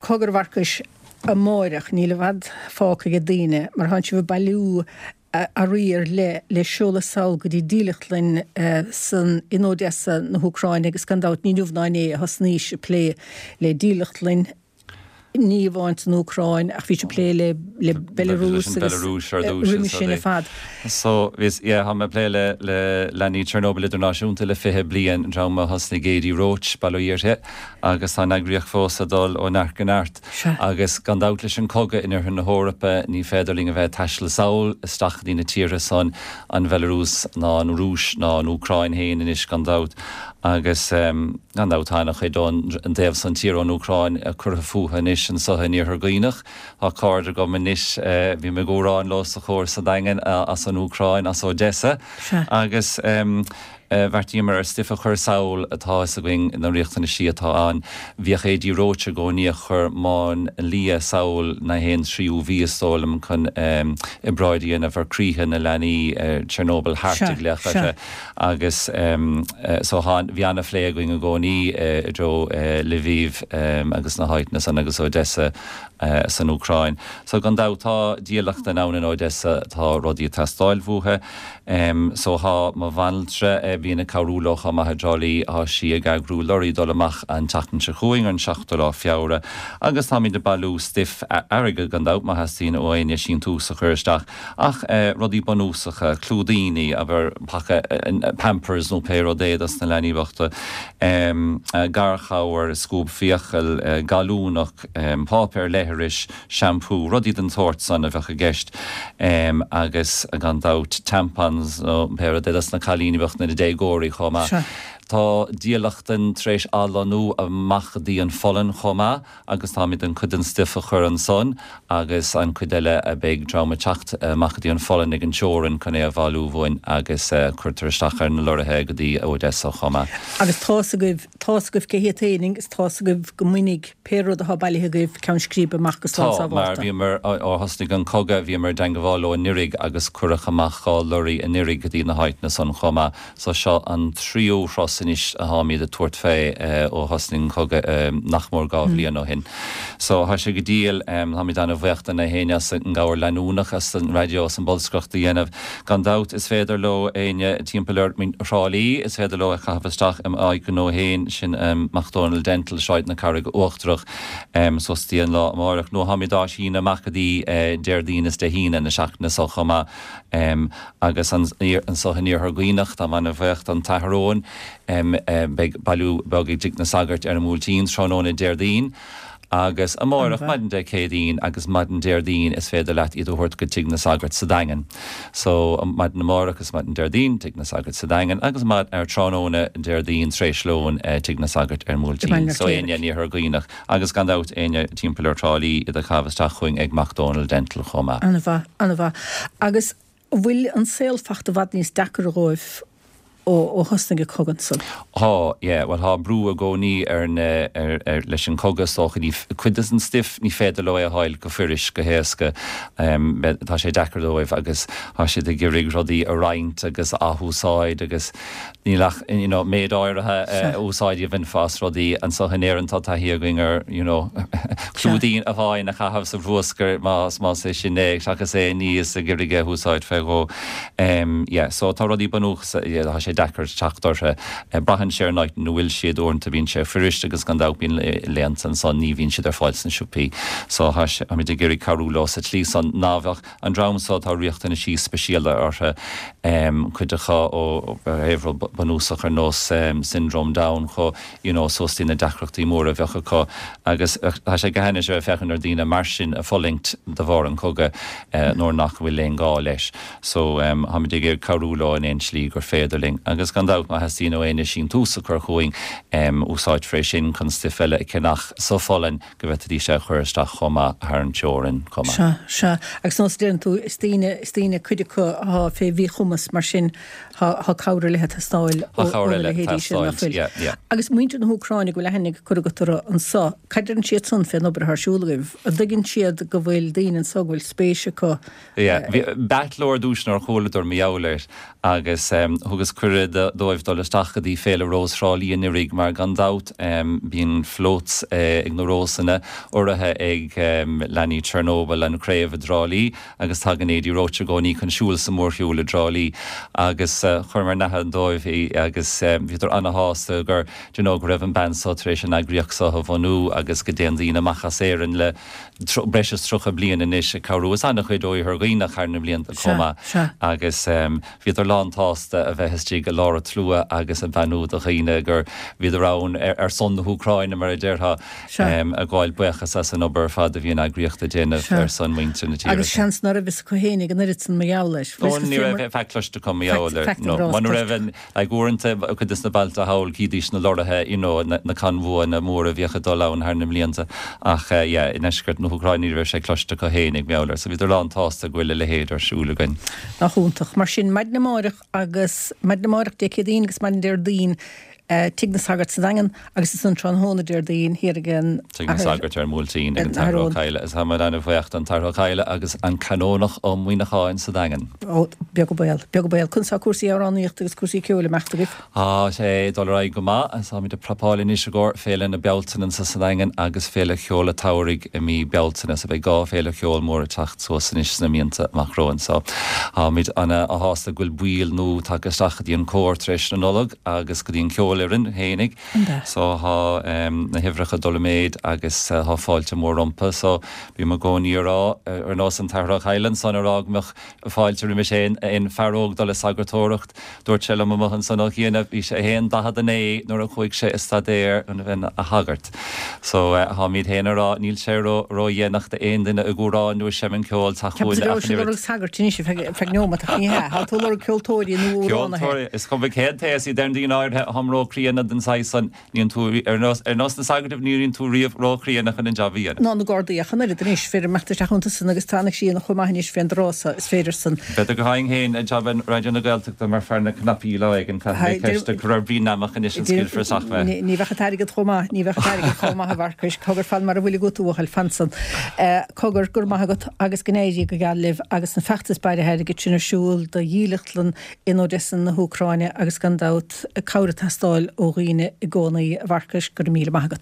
Cogar a Mharcais, amáireach, níl i bhfad fágtha ag daoine, mar thánn sibh ag bailiú earraí ar leith le seoladh sall go dtí dílleachtlann san in Odessa na hÚcráine agus gan dabht ní inniu ná inné a thosnaís ag plé le dílleachtlann ní amháin san Úcráin ach bhí sibh ag plé le le Belarus agus roimhe sin ar fad. So, bhíos, yeah, tá mé ag plé le le leanaí Chernobyl Idirnáisiúnta le 20 bliain, an dream a thosnaigh Adi Roche, bail ó Dhia uirthi, agus tá an eagraíocht fós ag dul ó neart go neart. Agus gan dabht leis an cogadh in oirthear na hEorpa ní féidir linn a bheith ag taisteal sall isteach go dtí na tíortha san, an Bhelarúis ná an Rúis ná an Úcráin féin anois gan dabht. Agus gan dabht tá ana-chuid ón dtaobh san tíre ón Úcráin curtha fúthu anois anso in Iarthar Dhuibhneach. Tá cairde agam anois, bím ag amhrán leo sa chór sa Daingean as an Úcráin, as Odessa. Agus. Bheartaíomar ar stuif a chur sall, tá a fhios againn na riachtanaisí atá ann. Bhíodh Adi Roche i gcónaí ag cur máinlia sall na haon tríú mhí is dóigh liom chun obráid a dhéanamh ar croíthe na leanaí Chernobyl Heart a glaoch orthu agus so thá bhí ana-phlé againn i gcónaí i dtreo Lviv agus na háiteanna san agus Odessa san Úcráin. So gan dabht tá dílleachtlann ann in Odessa tá rudaí ag teastáil uathu. So thá mo bhanaltra, a bhíonn ag cabhrú leo chomh maith i dTrá Lí, thá sí ag eagrú lorry dul amach an tseachtain seo chugainn, ar an seachtú lá Feabhra, agus táimid ag bailiú stuif, airgead gan dabht má theastaíonn ó éinne síntiús a chur isteach, ach rudaí bunúsacha, clúidíní, abair paca Pampers nó pé rud é dos na leanaí bochta, garchabhair, scuab fiacal, gallúnach, páipéar leithris, shampoo, rudaí den tsórt san a bheadh i gceist agus gan dabht tampons nó pé rud é dos na cailíní bochta na déagóirí chomh maith. Tá dílleachtlann tar éis athlonnú amach go dtí an Pholainn chomh maith agus táimid chun cuid den stuif a chur ansan agus an cuid eile beidh dream ag teacht amach go dtí an Pholainn ag an teorainn chun é a bhailiú uainn agus cuirtear isteach ar na lorraithe go dtí Odessa chomh maith. Agus tá's agaibh, tá's agaibh cé hiad féin agus tá's agaibh go mbainfidh Pé rud atá bailithe agaibh ceann scríbe amach go slán Tá, mar sábhálta. bhíomar, ó thosnaigh an cogadh, bhíomar i dteangabháil leo anuiridh agus cuireadh amach 2 lorry anuiridh go dtí na háiteanna san chomh maith. So seo an tríú thuras anois atáimid ag tabhairt fé ó thosnaigh an cogadh nach mór 2 bhliain ó shin. So tá sé go diail, táimid ana-bhuíoch de na héinne as an gcabhair leanúnach, as an raidió, as an bolscaireacht a dhéanamh. Gan dabht is féidir leo éinne timpeall ar Thrá Lí, is féidir leo é a chaitheamh isteach i m'áit ghnó féin, sin Mac Dónaill Dental, Sráid na Carraige Uachtarach, suas dtí an lá amáireach. Nó táimid á síneadh amach go dtí Déardaoin is Dé hAoine na seachtaine seo chomh maith. Agus anso in Iarthar Dhuibhneach, táim ana-bhuíoch don tAthair Eoin, beidh bailiú beag ag Tigh na Sagart ar an mBuailtín tráthnóna Déardaoin. Agus amáireach, maidin Dé Céadaoin agus maidin Déardaoin is féidir leat iad a thabhairt go Tigh na Sagart sa Daingean. So, maidin amáireach is maidin Déardaoin, Tigh na Sagart sa Daingean agus ar tráthnóna Déardaoin tar éis lóin, Tigh na Sagart ar an mBuailtín. So, éinne in Iarthar Dhuibhneach agus gan dabht éinne timpeall ar Thrá Lí iad a chaitheamh isteach chugainn ag Mac Dónaill Dental chomh maith. Ana-mhaith, ana-mhaith. Agus An bhfuil an saol fachta i bhfad níos deacair dhóibh ó thosnaigh an cogadh ansan? Thá, yeah. Bhuel, thá brú i gcónaí ar na, ar, ar, leis an cogadh is dócha. Ní, cuid des an stuif ní féidir leo é a fháil go fuirist, go héasca. Tá sé deacair dóibh agus thá siad ag iarraidh rudaí a roinnt agus a athúsáid agus Níl ach you know méid áirithe úsáid a bhainfeá as rudaí. Anso in Éirinn tá taithí againn ar you know clúidín amháin a chaitheamh sa bhruascar más más é sin é seachas é a ní is ag iarraidh é a úsáid fé dhó. Yeah so tá rudaí bunúsacha yeah tá sé deacair teacht orthu. Braitheann sé ar an áit ina bhfuil siad uaireanta bíonn sé fuirist agus gan dabht bíonn laethanta ansan ní bhíonn siad ar fáil sna siopaí. So tá sé táimid ag iarraidh cabhrú leo sa tslí san ná bheadh An dream so tá riachtanaisí speisialta orthu, cuid acu ó thaobh rud bunúsach ar nós Syndrome Down chomh you know suas dtí na deacrachtaí móra a bheadh acu agus tá sé go hainnis a bheith ag féachaint ar daoine mar sin ag fulaingt de bharr an chogaidh nuair nach bhfuil aon gá leis. So táimid ag iarraidh cabhrú leo in aon slí gur féidir linn agus gan dabht má theastaíonn ó éinne síntiús a chur chugainn úsáidfear é sin chun stuif eile a cheannach sa Pholainn go bhféadfaidís é a chur isteach chomh maith thar an teorainn chomh maith. Sea, sea. Agus nós a deireann tú, is daoine, is daoine, cuid acu athá fé mhíchumas, mar sin thá, thá cabhair ar leith ag teastáil Thá ó, cabhair óna eile ag leithéidí sin, nach teastáilt, bhfuil? yeah, yeah. Agus muintir na hÚcráine go bhfuil aithne curtha agat orthu anso, cad deireann siad san fén obair athá ar siúl agaibh? An dtuigeann siad go bhfuil daoine anso go bhfuil spéis acu Yeah, bhí, b'ait leo ar dtús nuair a chualadar mar gheall air agus thugas cuireadh. cuireadh dóibh dul isteach go dtí Féile Rós Thrá Lí anuraidh mar gan dabht bíonn floats ag na Rósanna urraithe ag leanaí Chernobyl, an chraobh i dTrá Lí agus tagann Adi Roche i gcónaí chun siúl sa mhórshiúl i dTrá Lí agus chuireamar in aithne dóibh í agus bhíodar ana-shásta gur you know go raibh an bean so tar éis an eagraíocht so a bhunú agus go dtéann daoine amach as Éirinn le breis is 30 bliain anois ag cabhrú is an-chuid ó Iarthar Dhuibhneach thar na blianta chomh maith agus bhíodar lán-tsásta a bheith istigh i lár an tslua agus ag beannú do dhaoine gur bhíodar ann ar son na hÚcráine mar a déarfá ag gabháil buíochas as an obair ar fad a bhí an eagraíocht ag déanamh ar son muintir na tíre. Agus seans ná raibh fhios acu fhéinig an oiread san mar gheall air. Ó ní raibh faic cloiste acu mar gheall air. No, muna raibh an Like uaireanta, cuid des na bailte thall, chídís na lorraithe, you know, na convoyanna móra a bhíodh ag dul ann thar na mblianta ach yeah, i ndeisceart na hÚcráine ní raibh sé cloiste acu fhéinig mar gheall air, so bhíodar lán-tsásta go bhfuil a leithéid ar siúl againn. Nach iontach. Mar sin, maidin amáireach agus, maidin amáireach Dé Céadaoin agus maidin Déardaoin, Tigh na Sagart sa Daingean agus ansan tráthnóna Déardaoin thiar ag an Tigh na Sagart ar an mBuailtín ag an tAthair Ó Cadhla agus táimid ana-bhuíoch don tAthair Ó Cadhla agus an Canónach Ó Muíneacháin sa Daingean. Ó, beag an baol, beag an baol. Conas tá cúrsaí amhránaíochta agus cúrsaí ceoil ag imeacht agaibh? Tá sé ag dul ar aghaidh go maith agus táimid ag prapáil anois i gcomhair Féile na Bealtaine anso sa Daingean agus Féile Cheoil an tSamhraidh i mí Bealtaine so beidh 2 féile cheoil mór ag teacht suas anois sna míonta amach romhainn so táimid ana-shásta go bhfuil baill nua tagtha isteach go dtí an cór tar éis na Nollag. agus go dtí an cheolfhoireann fhéinig. So thá na huimhreacha ag dul i méid agus thá fáilte mór rompu. So bím i gcónaí a rá, ar nós an tAthair Ó Cadhla ansan a rá go mbeadh fáilte roimis aon fear óg dul ag sagartóireacht. Dúirt sé liom amuigh ansan ó chianaibh, bhí sé fhéin 49 nuair a chuaigh sé ag staidéar chun a bheith ina shagart. So tháimíd féin a rá níl sé ró ró-dhéanach d'aon duine ag amhrán nó ag seinm ceoil teacht chugainn ach an oiread. Sagairt anois ar feadh neomat ach ní hea. Tá tú ag lorg ceoltóirí nó amhránaithe. Ceoltóirí, is cuma cén t-aos iad deireann daoine áirithe, táim ró-chríonna den saghas san, níonn tú, ar nós, ar nós na sagart, ní bhíonn tú riamh ró-chríonna chun an jab a dhéanamh. Ná na Gardaí ach an oiread anois, fir ag imeacht isteach iontu san agus tá an síon chomh maith anois fén dtráth so, is féidir san. B'fhéidir go bhfaighinn féin jab i Raidió na Gaeltachta mar fear na cnaipí lá éigin, caithfidh mé ceist a chur ar Bhrian Namach anois an scaoilfear isteach mé. Ní bheadh an t-airgead chomh maith, ní bheadh an t-airgead chomh maith a Mharcais, cogar fan mar a bhfuil agat a bhuachaill, fan san. Cogar, go raibh maith agat agus go n-éirí go geal libh agus an feachtas bailithe airgid sin ar siúl do dhílleachtlann in Odessa na hÚcráine agus gan dabht cabhair ag teastáil ó dhaoine i gcónaí. A Mharcais, go raibh míle maith agat.